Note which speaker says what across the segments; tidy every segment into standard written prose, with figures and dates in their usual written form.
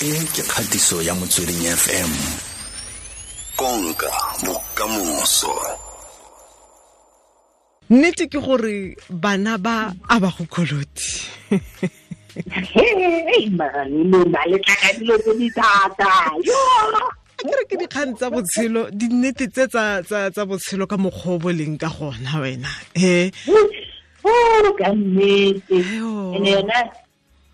Speaker 1: E ke kgatiso ya Motsweding FM. Konka bokamoso.
Speaker 2: Nnete ke gore bana ba a ba go koloti.
Speaker 3: Hey, mara lona le tla ka dilo tse di thata. Yo!
Speaker 2: Ke re ke dikgang tsa botshelo, dinnete tse tsa botshelo ka mokgwa o bo leng ka gona wena. He.
Speaker 3: Oh, ka nnete. Ene yona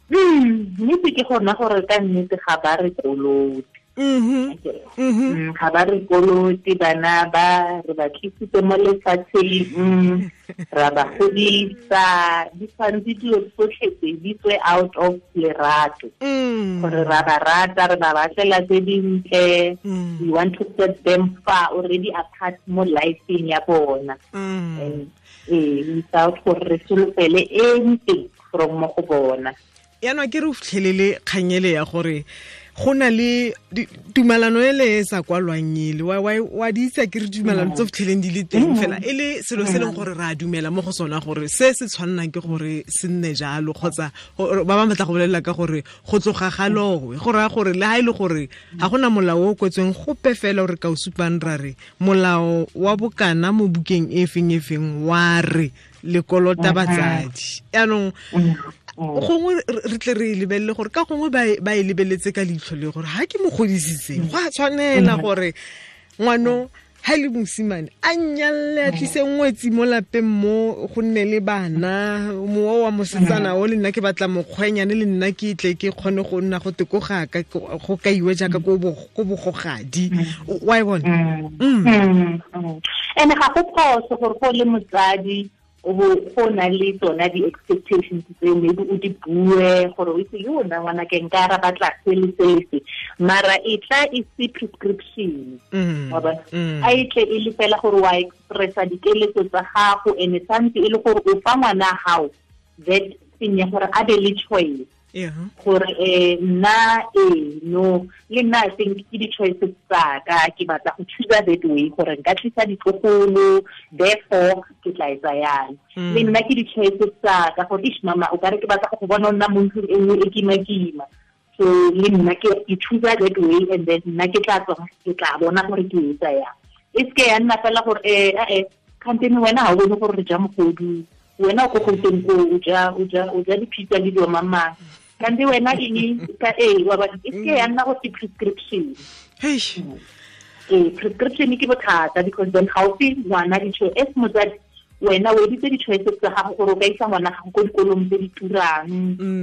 Speaker 3: nnete ke gona gore ka nnete ga ba re kolote. Ga ba re kolote, bana ba re ba tlisitse mo lefatsheng, ra ba godisa, di tshwanetse dilo tsotlhe tse di tswe out of lerato. Gore ra ba rata, re ba batlela tse dintle, we want to set them far already apart mo lifeng ya bona. And without gore re solofele anything from mo go bona.
Speaker 2: Yaanong ke re o fitlhelele kganyele ya gore go na le tumalano e le e sa kwalwang ele wa di itse ke re tumalano tse fitlheleng di le teng fela e le selo se leng gore re a dumela mo go sona gore se se tshwannang ke gore se nne jalo, kgotsa ba bangwe batla go bolelela ka gore go tloga ga lowe, go raya gore le ha e le gore ga gona molao o kwetsweng gope fela o re ka o supang ra re molao wa bokana mo bukeng e feng e feng wa re le kolota batsadi. Yaanong gongwe re tle re lebelele gore ka gongwe ba e lebeletse ka leitlho le gore ha ke mo godisitse go a tshwanela gore ngwano ha le mosimane a nyalle a tlise ngwetsi mo lapeng mo go nne le bana, mowa wa mosetsana o le nna ke batla mokgwenyane le nna ke tle ke kgone go nna go te ko gaka go kaiwe jaaka ko bogogadi. Wa e bona?
Speaker 3: Ene ga go phoso gore go le motsadi go na le tsona di-expectations tse maybe o di bue gore o itse yo nna ngwana ke nka ra batla se le se le se, mara e tla e se prescription. Wa bona? A e tle e le fela gore wa expressa dikeletso tsa gago, and santse e le gore o fa ngwana gago that thing ya gore a be le choice. Gore nna no le nna I think ke di-choices tsa ka, ke batla go choose that way gore nka tlisa ditlogolo, therefore ke tla etsa yang. Le nna ke di-choices tsa ka gore ish mama o kare ke batla go bona o nna mo ntlong e nngwe e kima-kima, so le nna ke choose that way, and then nna ke tla tswa ke tla bona gore ke etsa yang. E seke ya nna fela gore kgantene wena ha o bone gore re ja mogodu, wena o ko Gauteng ko o ja di-pizza le dilo mang-mang, kante wena eng ka wa ba e seke ya nna go se prescription. Prescription ke bothata because then ga o fe ngwana di-choice as motsadi, wena o editse di-choices tsa gago gore o ka isa ngwana gago ko dikolong tse di turang,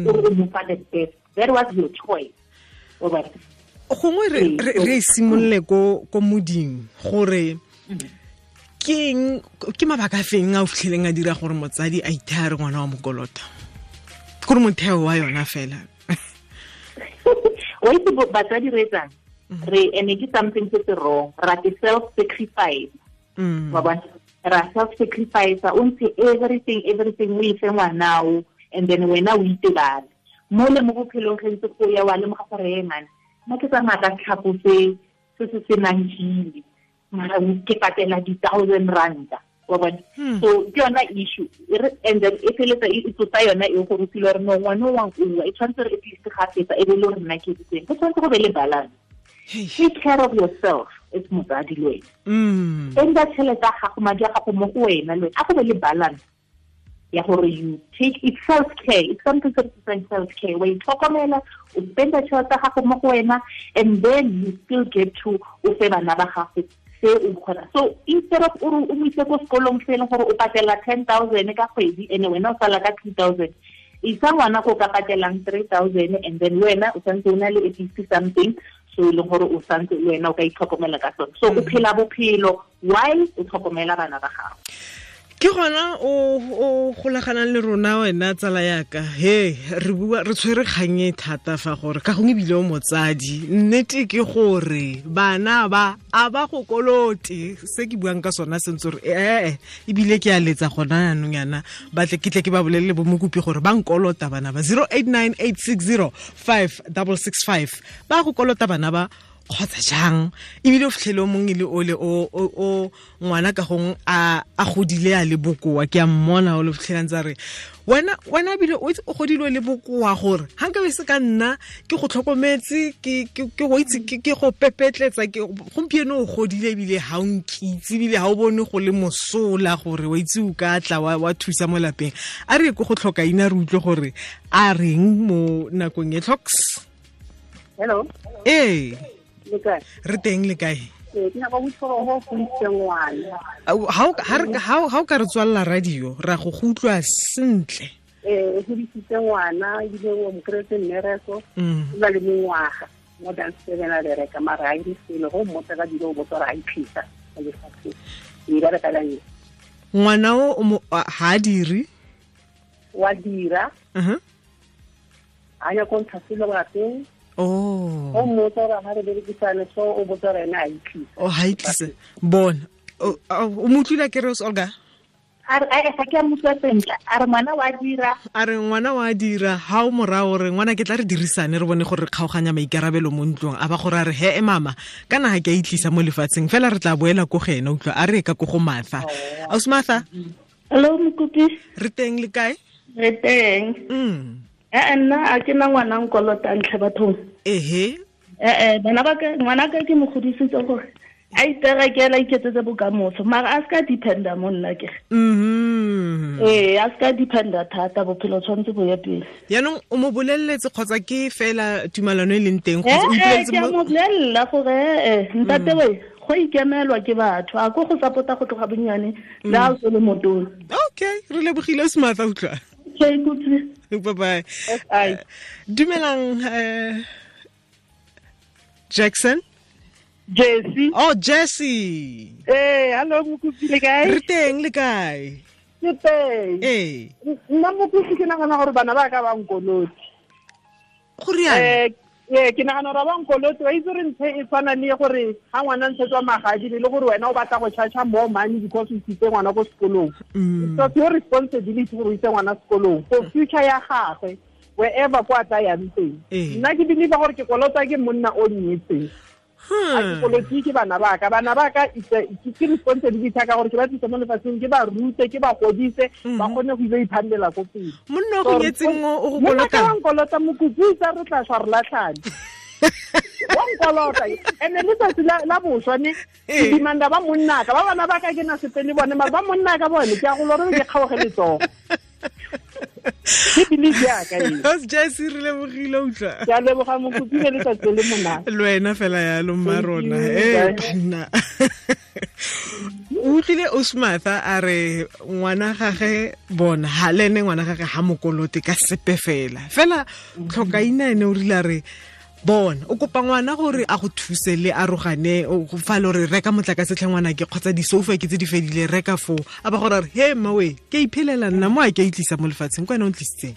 Speaker 3: o re o mo fa the best. That was your choice.
Speaker 2: Gongwe re simolole ko moding gore ke mabaka a feng a o fitlheleng a dira gore motsadi a ithaya re ngwana wa mokolota, gore motheo wa yona fela.
Speaker 3: Wa itse batsadi re etsang re ene ke something se se wrong, ra ke self sacrifice. Wa bona, ra self sacrifice, o ntshe everything o ife ngwanao, and then wena o itebale mo le mo bophelong ge ntse go ya wa lemoga gore e man nna ke tsamaya ka tlhapo se se senang hili, mara ke patela di-1,000 ranta. Wa bona? So ke yona issue, and then e feletsa e tsotsa yona e gore o feel gore no ngwana o wa nkuwa, e tshwanetse re at least ga fetsa e be le gore nna ke editseng. Go tshwanetse go be le balance. Take care of yourself as motsadi le wena. Spenda tšhelete ya gago, madi a gago mo go wena le wena, a go be le balance ya gore you take it self care. It's something that is self care. Wa itlhokomela, o spenda tšhelete ya gago mo go wena, and then you still get to o fe bana ba gago se o kgona. So instead of o mo ise ko sekolong se e leng gore o patela 10,000 ka kgwedi, ene wena o sala ka 2,000, isa ngwana ko ka patelang 3,000, and then wena o santse o na le at least something so e leng gore o santse le wena o ka itlhokomela ka sone. So o phela bophelo while o tlhokomela bana ba gago.
Speaker 2: Ke gona o golaganang le rona wena tsala yaka. He re bua re tshwere kgang e thata fa gore ka gongwe ebile o motsadi, nnete ke gore bana ba a ba go kolote, se ke buang ka sona sentse gore ebile ke a letsa gona yanong yana batle ke tle ke ba bolelele bo mokopi gore ba nkolota bana ba 0898605665 ba go kolota bana ba. Kgotsa jang ebile o fitlhele o mongwe le ole o ngwana ka gong a godile a le bokoa ke a mmona o le fitlhelang tsa re wena ebile o godile o le bokoa gore ga nka be se ka nna ke go tlhokometse ke go itse ke go pepetletsa ke gompieno o godile ebile ga o nkitse ebile ga o bone go le mosola gore wa itse o ka tla wa thusa mo lapeng. A re ko go tlhoka ina re utlwe gore a reng mo nakong e. Tlhoks.
Speaker 4: Hello.
Speaker 2: Ee. Re teng le kae? Ha o ka re tswalla radio ra go utlwa sentle.
Speaker 4: O godisitse ngwana ebile o mo kry-etse mmereko, o na le mengwaga more than 7 a bereka, mara ha ire selo go mmotsa ka dilo o botsa gore a iphisa mo lefatsheng. E bereka ka eng?
Speaker 2: Ngwana o ha dire?
Speaker 4: Wa dira. A ya ko ntsha selo lapeng.
Speaker 2: Oh.
Speaker 4: O mmotsa gore ha re berekisane so o botsa gore ene a itlisa.
Speaker 2: O ha itlisa. Bona. O mo utlwile ke re Olga?
Speaker 3: A re ga ke a mo utlwa sentle. A re ngwana wa dira.
Speaker 2: A re ngwana wa dira. Ha o morao gore ngwana ke tla re dirisane re bone gore re kgaoganya maikarabelo mo ntlong. A ba gore a re he mama kana ha ke a itlisa mo lefatsheng fela re tla boela ko go ena utlwa a re ka ko go Martha. Ausi Martha.
Speaker 5: Hello Mokopi.
Speaker 2: Re teng le kae?
Speaker 5: Re teng. Nna a ke na ngwana nkolota ntlhe bathong.
Speaker 2: Ehe.
Speaker 5: Bana ba ka ngwana ka ke mo godisitse gore a iterekela iketsetse bokamoso mara a ska dependa mo nna ke. A ska dependa thata bophelo tshwanetse bo ye pele.
Speaker 2: Yaanong o mo boleletse kgotsa ke fela tumalano e leng teng kgotsa o ipoleletse
Speaker 5: mo? Ke a mo bolella gore ntate we go ikemelwa ke batho a ko go support-a go tloga bonnyane le a o le motona.
Speaker 2: Okay, re lebogile o Martha utlwa.
Speaker 5: Okay, good.
Speaker 2: Bye bye. Dumelang Jackson.
Speaker 4: Jesse.
Speaker 2: Oh, Jesse.
Speaker 4: Hey, hello Mokopi le kae?
Speaker 2: Re teng le kae?
Speaker 4: Ke teng.
Speaker 2: Eh.
Speaker 4: Nna Mokopi ke nagana gore bana ba ka ba nkolote.
Speaker 2: Go riana?
Speaker 4: Ke nagana gore ba nkolote wa itse re ntse e tshwana le gore ha ngwana ntshetswa magadi le gore wena o batla go charge more money because o isitse ngwana ko sekolong. It's your responsibility gore o ise ngwana sekolong for future ya gagwe wherever kwa tla yang teng. Nna ke believe gore ke kolota ke monna o nnyetseng. A ke kolotse ke bana ba ka ke responsibility ka gore ke ba tlisa mo lefatsheng ke ba rute ke ba godise ba kgone go ile iphandela ko pele.
Speaker 2: Monna o go nyetseng o go kolota.
Speaker 4: Monna kolota Mokopi tsa re tla shwa re latlhane. Wa nkolota ene letsatsi la boswa ne ke demanda ba monna ka ba bana ba ka ke na sepe le bone mara ba monna ka bone ke a go lore ke kgaoge letsogo. Ke believe ya ka e.
Speaker 2: Jesse re lebogile utlwa.
Speaker 4: Ke a leboga Mokopi le letsatsi le monate.
Speaker 2: Le wena fela yalo mma rona. Banna. O utlwile Osmatha a re ngwana gage bona ha le ene ngwana gage ha mokolote ka sepe fela. Fela tlhokaina ene o rile a re bona o kopa ngwana gore a go thuse le arogane o fa le re reka motlakase tlhe ngwana ke kgotsa di-sofa ke tse di fedile reka foo a ba gore he mmawe ke iphelela nna mo a ke a itlisa mo lefatsheng ke wena o ntlisitseng.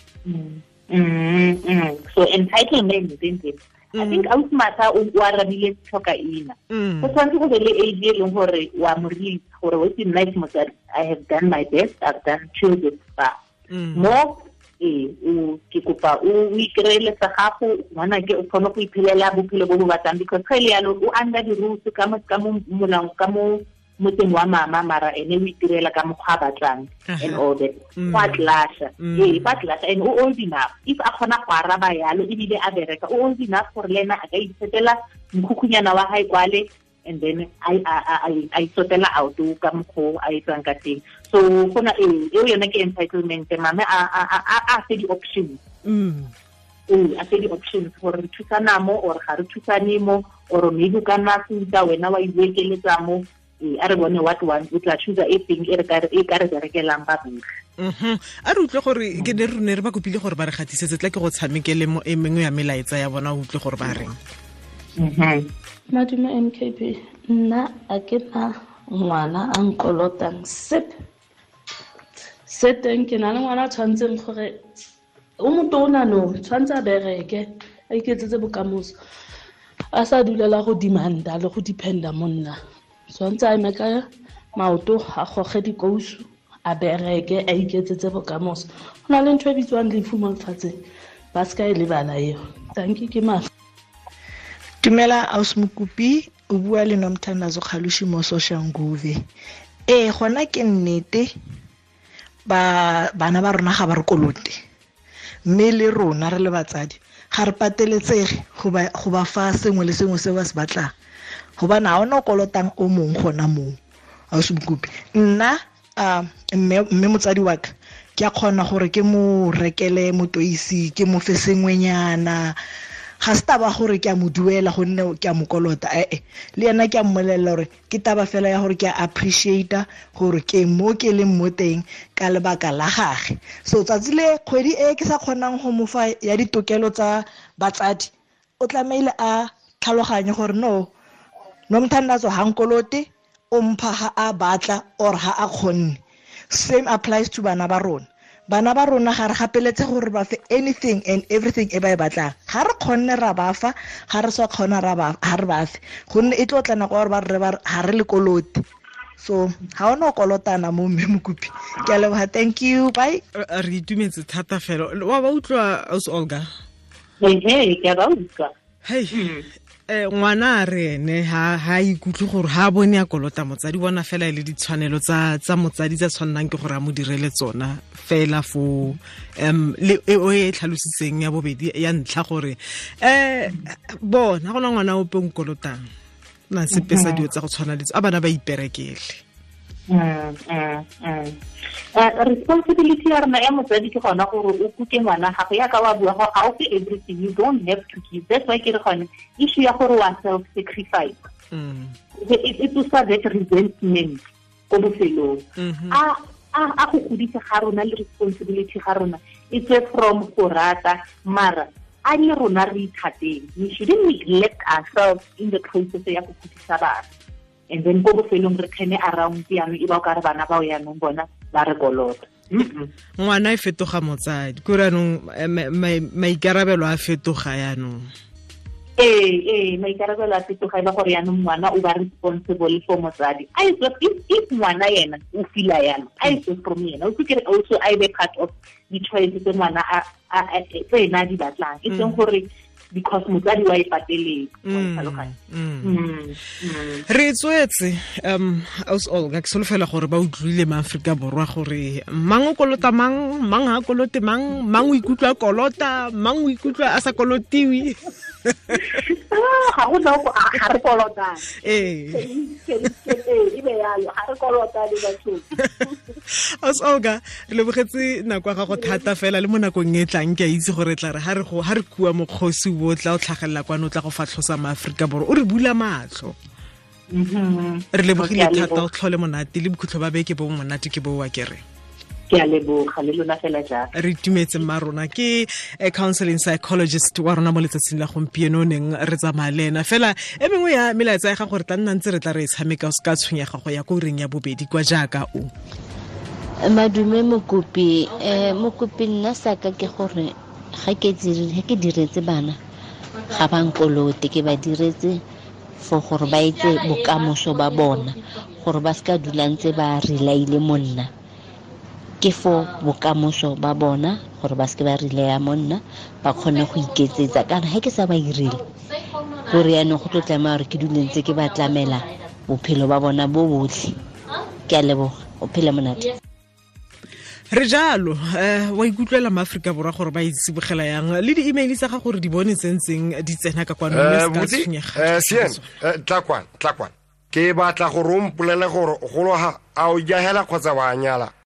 Speaker 3: So entitlement I think ausi Martha o arabile tlhokaina. Go tshwanetse go be le age e leng gore wa mo release gore o itse nna ke motsadi I have done my best, I've done till this far. Mo ke kopa o ikreele sa gago ngwana ke o kgone go iphelela bophelo bo bo batlang because ga ile yalo o under the rules ka mo molao ka mo motseng wa mama mara ene o itirela ka mokgwa a batlang and all that. Go a tlasha ba tlasha and o old enough if a kgona go araba yalo ebile a bereka o old enough gore le ena a ka itsetela mokhukhuyana wa hae kwale and then I sotela out ka mokgo a etsang ka teng. So gona eo yone ke entitlement mame a fe di-options. A fe di-options gore re thusana mo or ga re thusane mo or maybe o ka nna futa wena wa iwekeletsa mo a re bone what one o tla choose e teng e ka re berekelang ba botlhe.
Speaker 2: A re utlwe gore ke ne re ne re ba kopile gore ba re gatisetse tla ke go tshamekele mo e mengwe ya melaetsa ya bona o utlwe gore ba reng.
Speaker 5: Madume MKP, nna a ke na ngwana a nkolotang sepe. Se teng ke na le ngwana a tshwanetseng gore o motona no tshwanetse a bereke a iketsetse bokamoso a sa dulela go demanda le go dependa mo nna. Tshwanetse a eme ka maoto a goge dikousu a bereke a iketsetse bokamoso. Go na le ntho e bitswang lefu mo lefatsheng ba se ka e lebala eo. Thank you ke mafa.
Speaker 6: Dumela aus Mokopi, o bua le Nomthandazo Kgalushi mo Soshanguve. Ee, gona ke nnete ba bana ba rona ga ba re kolote, mme le rona re le batsadi ga re pateletsege go ba fa sengwe le sengwe se ba se batlang, gobane ga ona o kolotang o mongwe gona moo. Aus Mokopi, nna mme motsadi wa ka ke a kgona gore ke mo rekele motoisi, ke mo fe sengwenyana. Ga se taba gore ke a mo duela gonne ke a mo kolota, ee le yena ke a mmolelela gore ke taba fela ya gore ke a appreciate gore ke mo ke leng mo teng ka lebaka la gage. So tsatsi le kgwedi e ke sa kgonang go mo fa ya ditokelo tsa batsadi, o tlameile a tlhaloganye gore no Nomthandazo ha nkolote, o mpha ha a batla or ha a kgonne. Same applies to bana ba rona. Bana ba rona ga re gapeletse gore ba fe anything and everything e ba e batlang. Ga re kgonne ra ba fa, ga re sa kgona ra ba ha re ba fe, gonne e tlo tla nako gore ba re ba ha re le kolote. So ga ona o kolotana mo mme Mokopi. Ke a leboga, thank you, bye.
Speaker 2: Re itumetse thata fela. Wa ba utlwa aus Olga?
Speaker 3: Ee, ke a ba utlwa.
Speaker 2: Hey. Ngwana a re ene ha ikutlwe gore ha bone a kolota motsadi, bona fela e le ditshwanelo tsa motsadi tsa tshwannang ke gore a mo direle tsona fela fo le o e tlhalositseng ya bobedi ya ntlha gore bona gona ngwana ope o nkolotang na sepe sa dilo tsa go tshwana le a bana ba iperekele.
Speaker 3: Responsibility ya rona ya motsadi ke gona gore o kuke ngwana gago yaka wa bua gore ga o fe everything, you don't have to give. That's why ke re gone issue ya gore wa self sacrifice e tsosa that resentment ko bofelong. A go godisa ga rona le responsibility ga rona e tswe from go rata, mara a le rona re ithateng. We shouldn't neglect ourselves in the process ya go godisa bana. And then ko bofelong re kgene around jaanong e ba o ka re bana bao jaanong bona ba re kolota.
Speaker 2: Ngwana e fetoga motsadi, kore jaanong maikarabelo a fetoga jaanong.
Speaker 3: Ee, maikarabelo a fetoga e le gore jaanong ngwana o ba responsible for motsadi. A e if ngwana yena o feel-a yalo, a e from yena o kere also a e be part of di-choice tse ngwana tse ena a di batlang, e seng gore because motsadi wa e pateletse.
Speaker 2: Re tswetse aus Olga, ke solofela gore ba utlwile ma Afrika Borwa gore mang o kolota mang, mang ha kolote mang, mang o ikutlwa kolota, mang o ikutlwa a sa kolotiwe.
Speaker 3: Ga go na ga re kolotane.
Speaker 2: Ee.
Speaker 3: E be yalo, ga re kolotane batho.
Speaker 2: Aus Olga, re lebogetse nako ya gago thata fela le mo nakong e tlang ke a itse gore tla re ha re kua mokgosi o tla o tlhagelela kwano o tla go fatlhosa ma Aforika Borwa, o re bula matlho. Re lebogile thata, o tlhole monate le bokhutlo ba beke bo monate ke bo wa kere.
Speaker 3: Ke a leboga le lona fela jalo.
Speaker 2: Re itumetse mma rona ke counseling psychologist wa rona mo letsatsing la gompieno neng re tsamaya le ena fela. E mengwe ya melaetsa ya ga gore tla nna ntse re tla re e tshameka o se ka tshwenyega go ya ko ureng ya bobedi kwa jaaka o.
Speaker 7: Madume Mokopi, Mokopi nna saka ke gore ga ke diretse bana ga ba nkolote, ke ba diretse for gore ba etse bokamoso ba bona, gore ba seka dula ntse ba relaile monna. Ke for bokamoso ba bona gore ba seke ba relaya monna, ba kgone go iketsetsa. Kana ha ke sa ba irile gore yaanong go tlo tlameha gore ke dule ntse ke ba tlamela bophelo ba bona bo botlhe. Ke a leboga, o phele monate.
Speaker 2: Re jalo, wa ikutlwela ma Aforika Borwa gore ba itsibogela yang le di-email tsa ga gore di bone tsentseng di tsena ka kwano mme se ka tshwenyega.
Speaker 8: Sien, tla kwana. Ke batla gore o mpolele gore golo ha a o jahela kgotsa wa nyala.